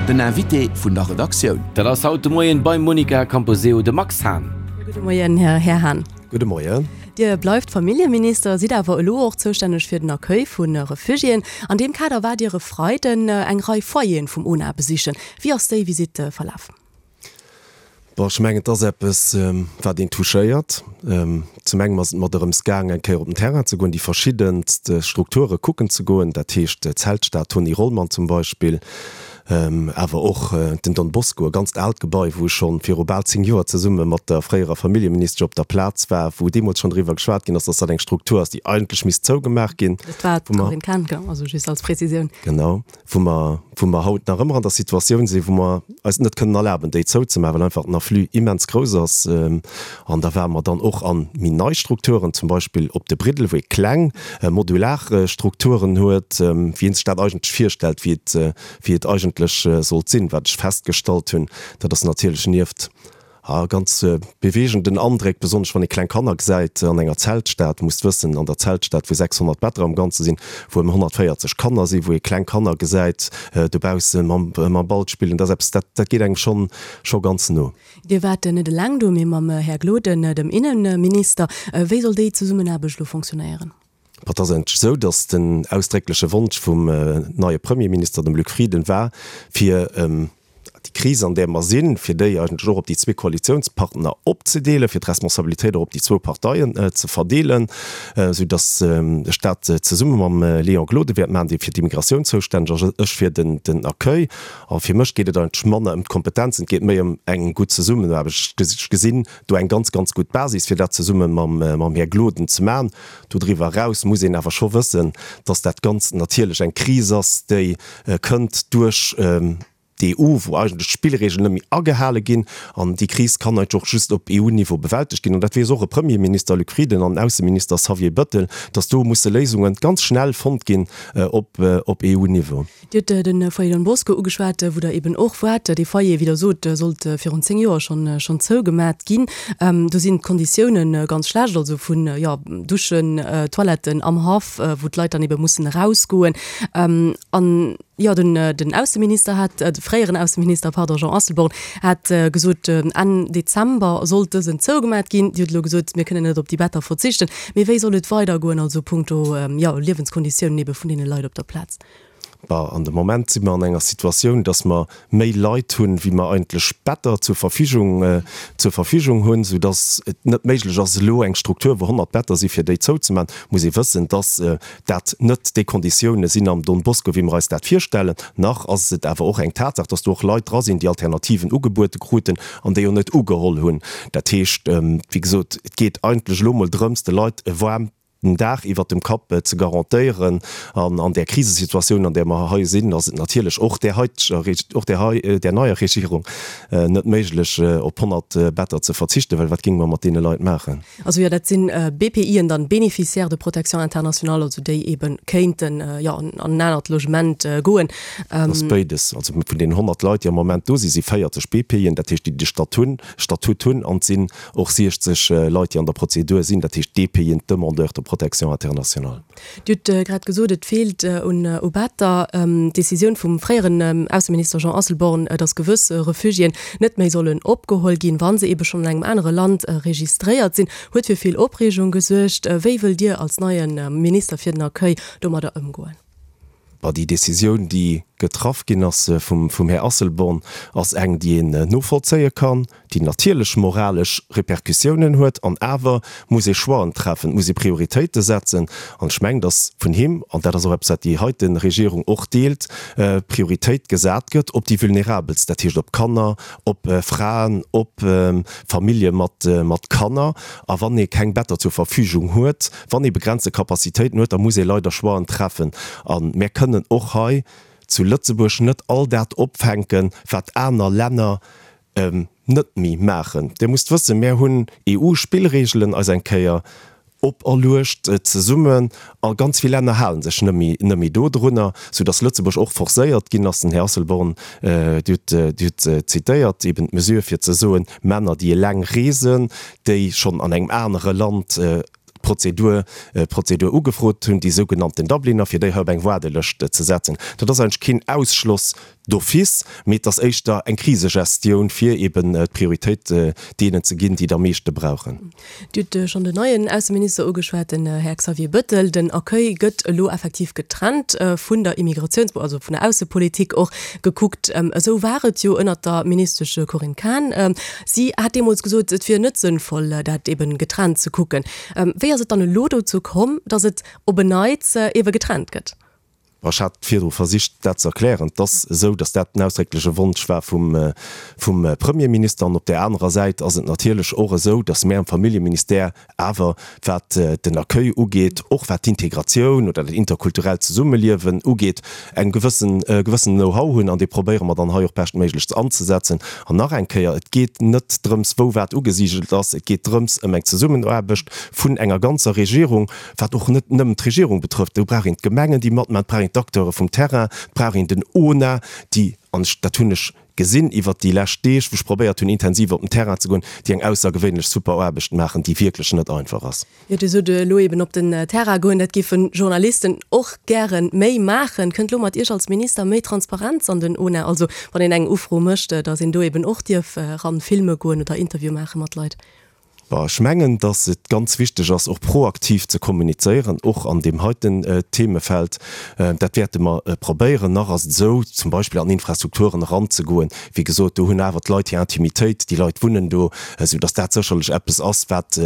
Den Invité vun der Redaktioun. Dat ass haut de Moien beim Monica Camposeo de Max Hahn. Gudde Moien, Här Hahn. Gudde Moien. Dir bleift Familljeminister, sidd awer elo och zoustänneg fir den Accueil vu Refugiéen. An deem Kader waart Dir e Freiden eng Rei Foyeren vum UNA besichen. Wéi ass déi Visitt verlaf? Bon, ech mengen, et ass eppes, wat een touchéiert. Zum engem ass et mer dorëms gaang, eng Kéier op den Terrain ze goen, déi verschiddenst Strukture kucken ze goen, dat heescht d'Zeltstad Tony Rollmann zum Beispill, awer och den Don Bosco, e ganzt aalt Gebai, wou ech scho viru bal 10 Joer zesumme mat der fréierer Familljeministesch op der Plaz war, wou deemools schonn driwwer geschwat ginn ass, dass dat eng Struktur ass, déi eigentlech misst zougemaach ginn. Dat war d'Corinne Cahen, also just als Prezisioun. Genau. Wou mer, wou mer haut nach ëmmer an der Situatioun sinn, wou mer eis et net kënnen erlaben, déi zouzemaachen, well einfach den Afflux immens grouss ass. An da ware mer dann och a méi nei Strukturen, zum Beispill op de Briddel, wou ee kleng modular Strukturen huet, wéi ee sech dat eigentlech virstellt, wéi et, wéi et eigentlech sollt sinn. Wat ech festgestallt hunn, dat ass natierlech nieft A ganz beweegenden Andréck, besonnesch wann ee kleng Kanner gesäit an enger Zeltstad. Musst wëssen, an der Zeltstad, wou 600 Better am Ganze sinn, wou ëm 140 Kanner sinn, wou ee kleng Kanner gesäit dobausse mam Ball spillen, dat ass eppes, dat dat geet engem schonn scho ganz no. Dir waart net eleng do, mee mam Här Gloden, dem Innenminister. Wéi soll déi Zesummenaarbecht elo fonctionnéieren? Et ass eigentlech esou, datt den ausdréckleche Wonsch vum neie Premierminister, dem Luc Frieden, war, fir déi Kris, an där mer sinn, fir déi eigentlech och op déi zwee Koalitiounspartner opzedeelen, fir d'Responsabilitéit och op déi zwou Parteien ze verdeelen, esou datt ech dat zesumme mam Léon Gloden wäert maachen, dee fir d'Immigratioun zoustänneg ass, ech fir den Accueil. A fir mech geet et eigentlech manner ëm d'Kompetenzen, et geet méi ëm eng gutt Zesummenaarbecht. Ech gesinn do eng ganz, ganz gutt Basis, fir dat zesumme mam Här Gloden ze maachen. Dodriwwer eraus muss een awer scho wëssen, dass dat Ganzt natierlech eng Kris ass, déi kënnt duerch d'EU, wou eigentlech d'Spillregeln net méi agehale ginn. An déi Kris kann eigentlech och just op EU-Niveau bewältegt ginn. An dat weess och e Premierminister Luc Frieden an en Ausseminister Xavier Bëttel, dass do musse Léisunge ganz schnell fonnt ginn op EU-Niveau. Dir hutt de Foyer Don Bosco ugeschwat, wou Der eben och waart. Dee Foyer, wéi Der sot, sollt virun 10 Joer schonn schonn zougemat ginn. Do sinn d'Konditioune ganz schlecht, also vun, jo, Duschen, Toiletten am Haff, wou d'Leit dann ebe mussen erausgoen. An, jo, den den Ausseminister hat, de fréieren Ausseminister, pardon, Jean Asselborn hat gesot, Enn Dezember sollt dësen zougemat ginn. Dir hutt elo gesot, mir kënnen net op déi Better verzichten. Mee wéi soll et weidergoen, also punkto, jo, Liewenskonditiounen ebe vun deene Leit op der Plaz? Bah, an de Moment si mer an enger Situatioun, dass mer méi Leit hunn, wéi mer eigentlech Better zur Verfügung, zur Verfügung hunn, soudass et net méiglech ass, elo eng Struktur, wou 100 Better si fir déi zouzemaachen. Muss ee wëssen, dass dat net déi Konditiounen sinn am Don Bosco, wéi mer eis dat virstellen. Nach ass et awer och eng Tatsaach, dass do och Leit dra sinn, déi Alternativen ugebuede kruten an déi och net ugeholl hunn. Dat heescht, wéi gesot, et geet eigentlech elo emol drëms, de Leit e waarmt, den Daach iwwert dem Kapp ze garantéieren. An an där Krisesituatioun, an där mer hei sinn, ass et natierlech och där heiteger, och där hei, där neier Regierung net méiglech, op 100 Better ze verzichten, well wat géinge mer mat deene Leit maachen? Also jo, dat sinn BPIen dann, Bénéficiaires de protection internationale, also déi eebe kéinten, jo, an en anert Logement goen. Dat ass béides. Also vun deenen 100 Leit, déi am Moment do sinn, si 40 BPIen, dat heescht, déi de Statut, Statut hunn, an et sinn Och 60 Leit, déi an der Prozedur sinn, dat heescht DPIen, Demandeurs de protection internationale. Dir hutt grad gesot, et feelt un u Better. D'Decisioun vum fréieren Ausseminister Jean Asselborn, datt gewëss Refugiéen net méi sollen opgeholl ginn, wa se ebe schonn an engem anere Land registréiert sinn, huet fir vill Opreegung gesuergt. Wéi wëllt Dir als neie Minister fir den Accueil domadder ëmgoen? Bah, déi Décisioun, déi getraff ginn ass vum Här Asselborn, ass eng, déi een novollzéie kann, déi natierlech moralesch Répercussiounen huet. An awer muss ee Choixen treffen, et muss ee Prioritéite setzen. An ech mengen, datt vun him, an dat ass och eppes, wat déi heite Regierung och deelt, Prioritéit gesat gëtt op déi Vulnerabelst, dat heescht op Kanner, op Fraen, op Famillje mat Kanner. A wann ee keng Better zur Verfügung huet, Wann ee begrenzte Capacitéiten huet, da muss ee leider Choixen treffen. A mär kënnen och hei zu Lëtzebuerg net all dat opfänken, wat aner Länner net méi maachen. Dir musst wëssen, mär hunn EU-Spillregelen eis eng Kéier operluecht zesummen a ganz vill Länner hale sech net méi, net méi dodrunner, soudass Lëtzebuerg och forcéiert ginn ass, den Här Asselborn, Dir hutt, Dir hutt zitéiert, eben d'Mesure fir ze soen, Männer, déi eleng reesen, déi schonn an engem anere Land. d'Prozedur, d'Prozedur ugefrot hunn, déi sougenannten Dubliner, fir déi hei op eng Waardelëscht ze setzen. Dat ass eigentlech keen Ausschloss d'office, mee et ass éischter eng Krisegestioun, fir eben d'Prioritéit deenen ze ginn, déi et am meeschte brauchen. Dir hutt schonn den neien Ausseminister ugeschwat, den Här Xavier Bëttel. Den Accueil gëtt elo effektiv getrennt vun der Immigratiouns-, also vun der Aussepolitik och gekuckt. Esou war et jo ënnert der Ministesch Corinne Cahen. Si hat deemools gesot, et wier net sënnvoll, dat eben getrennt ze kucken. Wéi ass et dann elo dozou komm, datt et op en Neits ebe getrennt gëtt? Ech hat virdru versicht, dat ze erklären. Et ass esou, datt dat den ausdréckleche Wonsch war vum, vum Premierminister. An op där anerer Säit ass et natierlech och esou, datt mär am Familljeministère awer, wat den Accueil ugeet, och wat d'Integratioun oder dat interkulturellt Zesummeliewen ugeet, eng gewëssen, e gewëssenen Know-how hunn. An dee probéiere mer dann hei och beschtméiglechst anzesetzen. An nach eng Kéier, Et geet net drëms, wou wat ugesigelt ass. Et geet drëms ëm eng Zesummenaarbecht vun enger ganzer Regierung, wat och net nëmmen d'Regierung betrëfft, do brauch een d'Gemengen, déi matmachen, et brauch een d'Acteure vum Terrain, et brauch een den ONA, déi, an ech, dat hunn ech gesinn iwwert déi lescht Deeg, wou ech probéiert hunn, intensiv op den Terrain ze goen, déi eng aussergewéinlech super Aarbecht maachen, déi wierklech net einfach ass. Jo, Dir sot elo eben op den Terrain goen, dat géife Journalisten och gäre méi maachen. Kënnt elo mat Iech als Minister méi Transparenz an den ONA, also wann een eng Ufro mécht, datt een do eben och dierf eran filme goen oder Interview maache mat Leit? Bon, ech mengen, dass et ganz wichteg ass, och proaktiv ze kommunizéieren, och an deem heiten Themefeld. Dat wäerte mer probéieren. Nach ass et esou, zum Beispill an Infrastrukturen eranzegoen, wéi gesot, do hunn awer d'Leit hir Intimitéit, déi Leit wunnen do, esou dass dat sécherlech eppes ass, wat,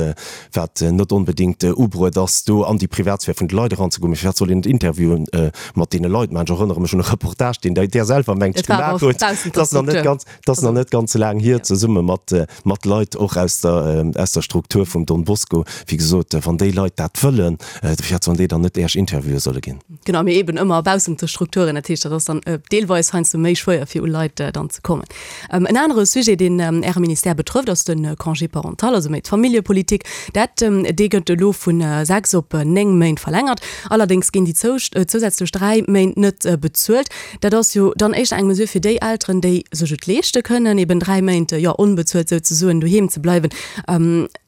wat net onbedéngt ubruet ass, do an déi Privatsphär vun de Leit eranzegoen. Mee firwat soll een net Interviewen mat deene Leit maachen? Ech erënnere mech un e Reportage, deen Der selwer, mengt ech, gemaach hutt. Dat ass nach net ganz. Dat ass nach net ganz laang hier, zesumme mat, mat Leit och aus der, aus der Struktur vum Don Bosco. Wéi gesot, wann déi Leit dat wëllen, firwat sollen déi dann net Äech Interviewe solle ginn? Genau, mee eben ëmmer baussent de Strukturen. Dat heescht, dat ass dann deelweis heiansdo méi schwéier, fir u Leit dann ze kommen. En anere Sujet, deen Äre Ministère betrëfft, ass de Congé parental, also méi d'Familljepolitik. Dat, dee gëtt elo vu 6 op 9 Méint verlängert. Allerdéngs ginn déi zousätzlech 3 Méint net bezuelt. Dat ass jo dann éischter eng Mesure fir déi Elteren, déi sech et leeschte kënnen, eben 3 Méint, jo, onbezuelt souzesoen doheem ze bleiwen.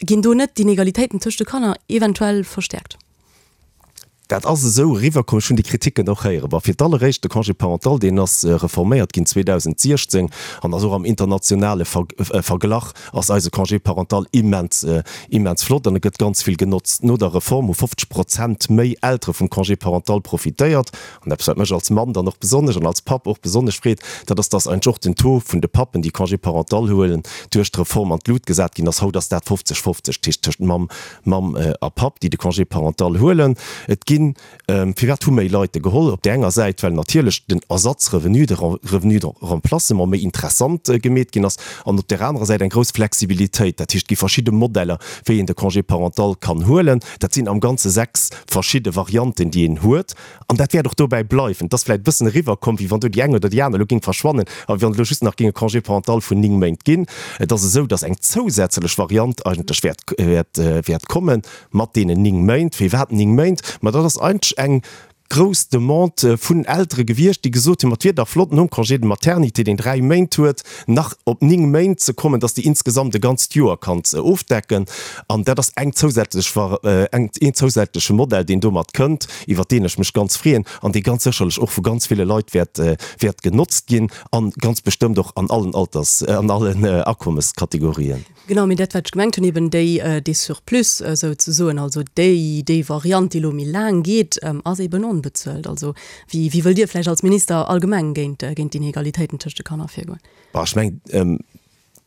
Ginn do net d'Inegalitéiten tëscht de Kanner eventuell verstäerkt? Dat ass esou eriwwerkomm. Ech hunn déi Kriticken och héieren. Bon, fir d'alleréischt, de Congé parental, deen ass reforméiert ginn 2016 an ass och am internationale Verglach ass eise Congé parental immens, immens flott an e gëtt ganz vill genotzt. No der Reform hu 50 Prozent méi Eltere vum Congé parental profitéiert. An eppes, wat mech als Mann dann och besonnesch an als Papp och besonnesch freet, dat ass, dass eigentlech och den Taux vun de Pappen, déi Congé parental huelen, duerch d'Reform an d'Lut gesat ginn ass. Haut ass dat 50, 50, dat heescht tëscht Mamm, Mamm a Papp, déi de Congé parental huelen. Et ginn, firwat hu méi Leit e geholl? Op där enger Säit, well natierlech den Ersatzrevenu, de Revenu de remplacement méi interessant gemeet ginn ass, an op där anerer Säit eng grouss Flexibilitéit. Dat heescht, et gi verschidde Modeller, wéi een de Congé parental kann huelen. Dat sinn am Ganze 6 verschidde Varianten, déi een huet. An dat wäert och dobäi bleiwen. Et ass vläicht e bëssen eriwwerkomm, wéi wann do déi eng oder déi aner elo géing verschwannen a wéi wann et elo just nach géing e Congé parental vun 9 Méint ginn. Et ass esou, datt eng zousätzlech Variant eigentlech wäert, wäert, wäert komme mat deenen 9 Méint. Firwat 9 Méint? Ma dat ass eigentlech eng grouss Demande vun Eltere gewiescht, déi gesot hunn, ma et wier dach flott, nom Congé de maternité, deen 3 Méint huet, nach op 9 Méint ze kommen, dass déi insgesamt e ganzt Joer kanns ofdecken. An dat ass eng zousätzlech, eng, een zousätzleche Modell, deen domat kënnt, iwwert deen ech mech ganz freeën an dee ganz sécherlech och vu ganz ville Leit wäert, wäert genotzt ginn a ganz bestëmmt och an allen Alters, an allen Akommeskategorien. Genau, mee dat, wat ech gemengt hunn, eben déi, dee Surplus souzesoen, also déi, déi Variant, déi elo méi laang geet, ass eben onbezuelt. Also wéi, wéi wëllt Dir vläicht als Minister allgemeng géint, géint d'Inegalitéiten tëscht de Kanner virgoen? Bon, ech mengen,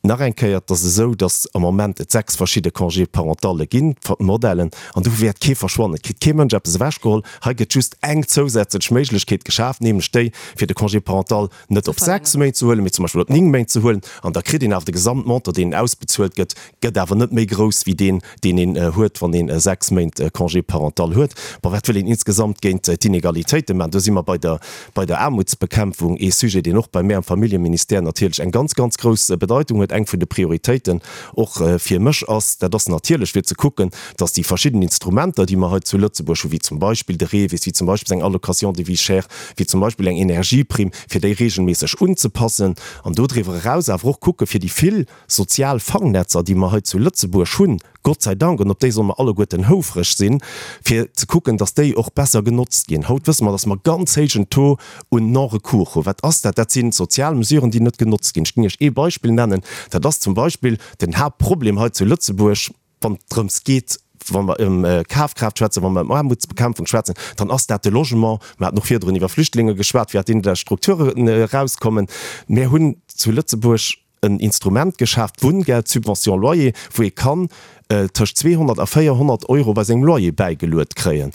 nach eng Kéier, et ass esou, datt am Moment et 6 verschidde Congé parentalle ginn, Modellen, an do wäert kee verschwannen. Et kritt kee Mënsch eppes ewechgeholl. Hei gëtt just eng zousätzlech Méiglechkeet geschaaft, nämlech déi, fir de Congé parental net op 6 Méint ze huelen, mee zum Beispill op 9 Méint ze huelen, an da kritt een awer de Gesamtmontant, deen ausbezuelt gëtt, gëtt awer net méi grouss wéi deen, deen een huet, wann een 6 Méint Congé parental huet. Bon, wat wëll een insgesamt géint d'Inegalitéite maachen? Do si mer bei der, bei der Aarmutsbekämpfung, ee Sujet, deen och bei mär am Familljeministère natierlech eng ganz, ganz grouss Bedeitung huet, eng vun de Prioritéiten och fir mech ass. Dat ass natierlech fir ze kucken, dass déi verschidden Instrumenter, déi mer hei zu Lëtzebuerg hunn, wéi zum Beispill de REVIS, wéi zum Beispill eng Allocation de vie chère, wéi zum Beispill eng Energieprimm, fir déi regelméisseg unzepassen an dodriwwer eraus awer och kucke fir déi vill sozial Fangnetzer, déi mer hei zu Lëtzebuerg hunn, Gott sei Dank, an op déi solle mer alleguerten houfreg sinn, fir ze kucken, dass déi och besser genotzt ginn. Haut wësse mer, dass mer ganz héijen Taux un Non-recours hunn. Wat ass dat? Dat si sozial Mesuren, déi net genotzt ginn. Ech géing Iech ee Beispill nennen, dat ass zum Beispill den Haaptproblem hei zu Lëtzebuerg, wann et drëms geet, wa mer ëm Kafkraaft schwätzen, wa mer ëm Aarmutsbekämpfung schwätzen, dann ass dat de Logement. Mer haten och virdrun iwwer Flüchtlinge geschwat, wéi aus deenen Strukturen erauskommen. Mir hunn zu Lëtzebuerg en Instrument geschaaft, d'Wunngeld, d'Subvention loyer, wou ee kann tëscht 200 a 400 Euro bei sengem Loyer bäigeluet kréien.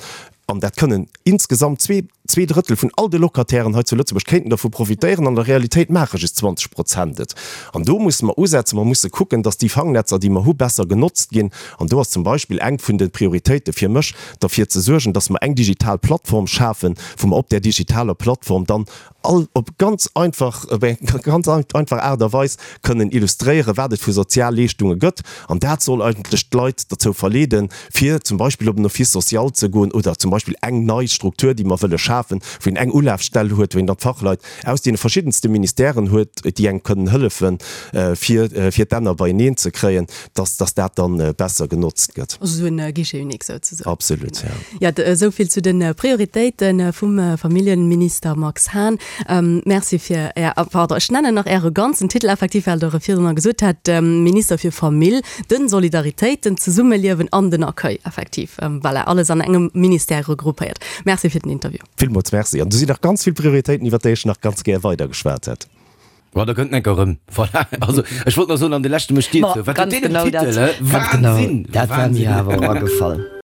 An dat kënnen insgesamt zwee Drëttel vun all de Locatairen hei zu Lëtzebuerg kéinten dervu profitéieren. An der Realitéit maache just 20 Prozent et. An do musse mer usetzen. Mer musse kucken, datt déi Fangnetzer, déi mer hu, besser genotzt ginn. An do ass zum Beispill eng vun de Prioritéite fir mech, derfir ze suergen, datt mer eng digital Plattform schafen, wou mer op där digitaler Plattform dann all op ganz einfach, op eng ganz einfach Aart a Weis kënnen illustréieren, wat et vu Sozialleeschtunge gëtt. An dat soll eigentlech d'Leit derzou verleeden, fir zum Beispill op en Office social ze goen oder zum Beispill eng nei Struktur, déi mer wëlle schafen, wou een eng Ulafstell huet, wou een dann d'Fachleit aus deene verschiddenste Ministèren huet, déi engem kënnen hëllefen, fir, fir d'Enner beieneen ze kréien, dass, dass dat dann besser genotzt gëtt. Also esou en Guichet unique souzesoen. Absolut, ja. Jo, esou vill zu de Prioritéite vum Familljenminister Max Hahn. Merci fir Är, pardon, ech nennen nach Äre ganzen Titel effektiv, well Der e virdrunner gesot hat, Minister fir Famill, den Solidaritéit, den Zesummeliewen an den Accueil, effektiv. Voilà, alles an engem Ministère regroupéiert. Merci fir den Interview. Villmools Merci. An do sinn nach ganz vill Prioritéiten, iwwert déi ech nach ganz gär weidergeschwat hätt. Bon, da kënnt en enker erëm. Voilà. Also, ech wollt nach soen, an de leschte mécht Dir zou. Wat huet deen en Titel, hä? Wahnsinn! Dat war mir awer och agefall.